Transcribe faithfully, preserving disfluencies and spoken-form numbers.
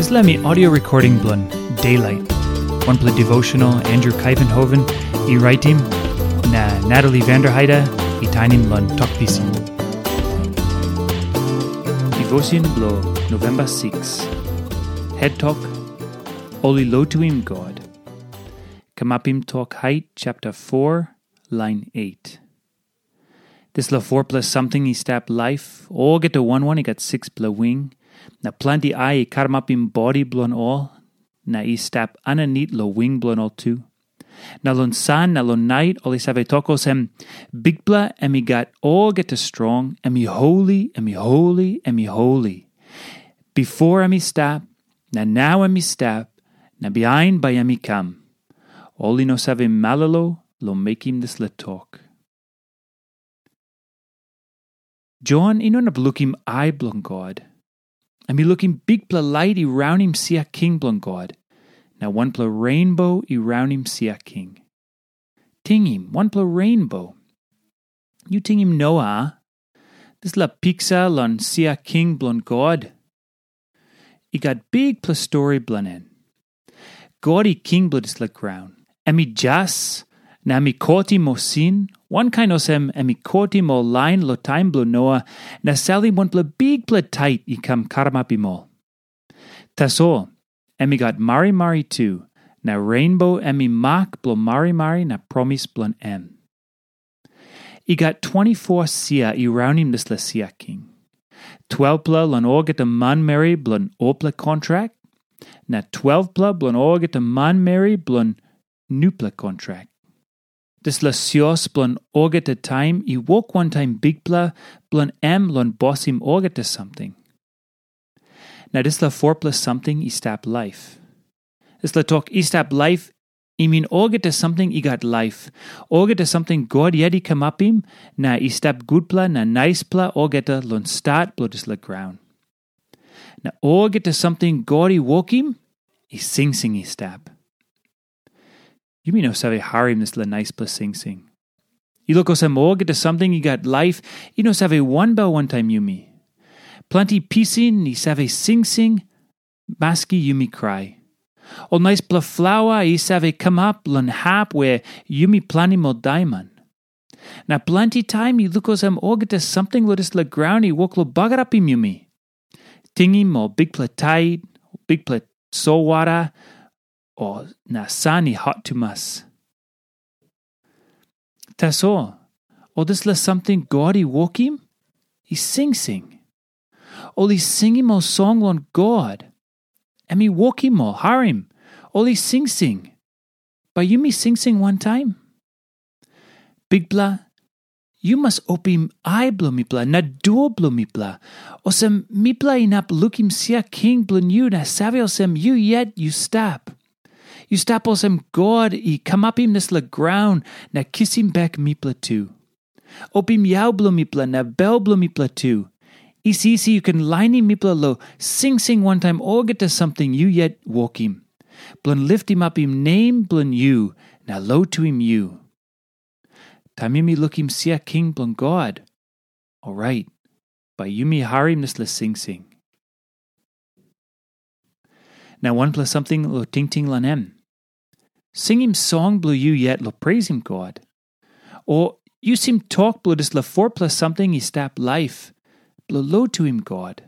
Dispela mi audio recording bilong Daylight, wanpela devotional Andrew Kaivenhoven i raitim, na Natalie Vanderheide i tainim long Tok Pisin. Devotion bilong November six. Head Talk, Ol i Lotuim God. Kamapim Tok Hait chapter four, lain eight. Dispela fourpela samting i stap laip, olgeta wan wan i gat sikspela wing, na planti ai i karamapim bodi bilong ol, na i stap aninit long wing bilong ol tu. Na long san na long nait ol i save tok olsem, "Bikpela em i gat olgeta strong, em i holi, em i holi, em i holi. Bipo em i stap, na nau em i stap, na bihain bai em i kam." Ol i no save malolo long mekim dispela tok. Jon i no inap lukim ai bilong God. Em i lukim bikpela lait i raunim sia king bilong God, na wanpela renbo i raunim sia king. Tingim, wanpela renbo. Yu tingim Noa, dispela piksa long sia king bilong God. I gat bikpela stori bilong en. God i king bilong dispela graun. Em i jas, na em i kotim ol sin, wankain olsem em i kotim ol lain long taim bilong Noa, na salim wanpela bikpela tait i kam karamapim ol. Tasol, em i gat marimari tu, na renbo em i mak bilong marimari na promis bilong em. I gat twenti-foa sia i raunim dispela sia king. Twelpela long olgeta manmeri bilong olpela kontrak, na twelpela bilong olgeta manmeri bilong nupela kontrak. Dispela sios bilong olgeta taim i wok wantaim Bikpela bilong em long bosim olgeta samting. Na dispela fourpela samting i stap laip. Dispela tok i stap laip, i min olgeta samting i gat laip, olgeta samting God yet i kamapim, na i stap gutpela na naispela olgeta long stat bilong dispela graun. Na olgeta samting God i wokim, i singsing i stap. Yumi no save harim dispela naispela singsing. I luk olsem olgeta samting i gat laip, i no save wanbel wantaim yumi. Planti pisin i save singsing, maski yumi krai. Ol naispela flaua i save kamap long hap we yumi planim ol daiman. Na planti taim i luk olsem olgeta samting long dispela graun i wok long bagarapim yumi. Tingim ol bikpela tait, bikpela solwara, o na san i hot tumas. Tasol, ol dispela samting God i wokim, i singsing. Ol i singim ol song long God. Em i wokim ol, harim, ol i singsing. Bai yumi singsing wantaim? Bikpela, yu mas opim ai bilong mipela na dua bilong mipela, olsem mipela inap lukim sia king bilong yu na save olsem yu yet yu stap. Yu stap olsem God i kamapim dispela graun na kisim bek mipela tu. Opim yau bilong mipela na bel bilong mipela tu. Isi isi yu ken lainim mipela long singsing wantaim olgeta samting yu yet wokim, bilong litimapim nem bilong yu na lotuim yu. Taim yumi lukim sia king bilong God, orait bai yumi harim dispela singsing. Na wanpela samting long tingting long em. Singim song bilong yu yet long preisim God. O yusim tok bilong dispela fourpela samting i stap laip, bilong lotuim God.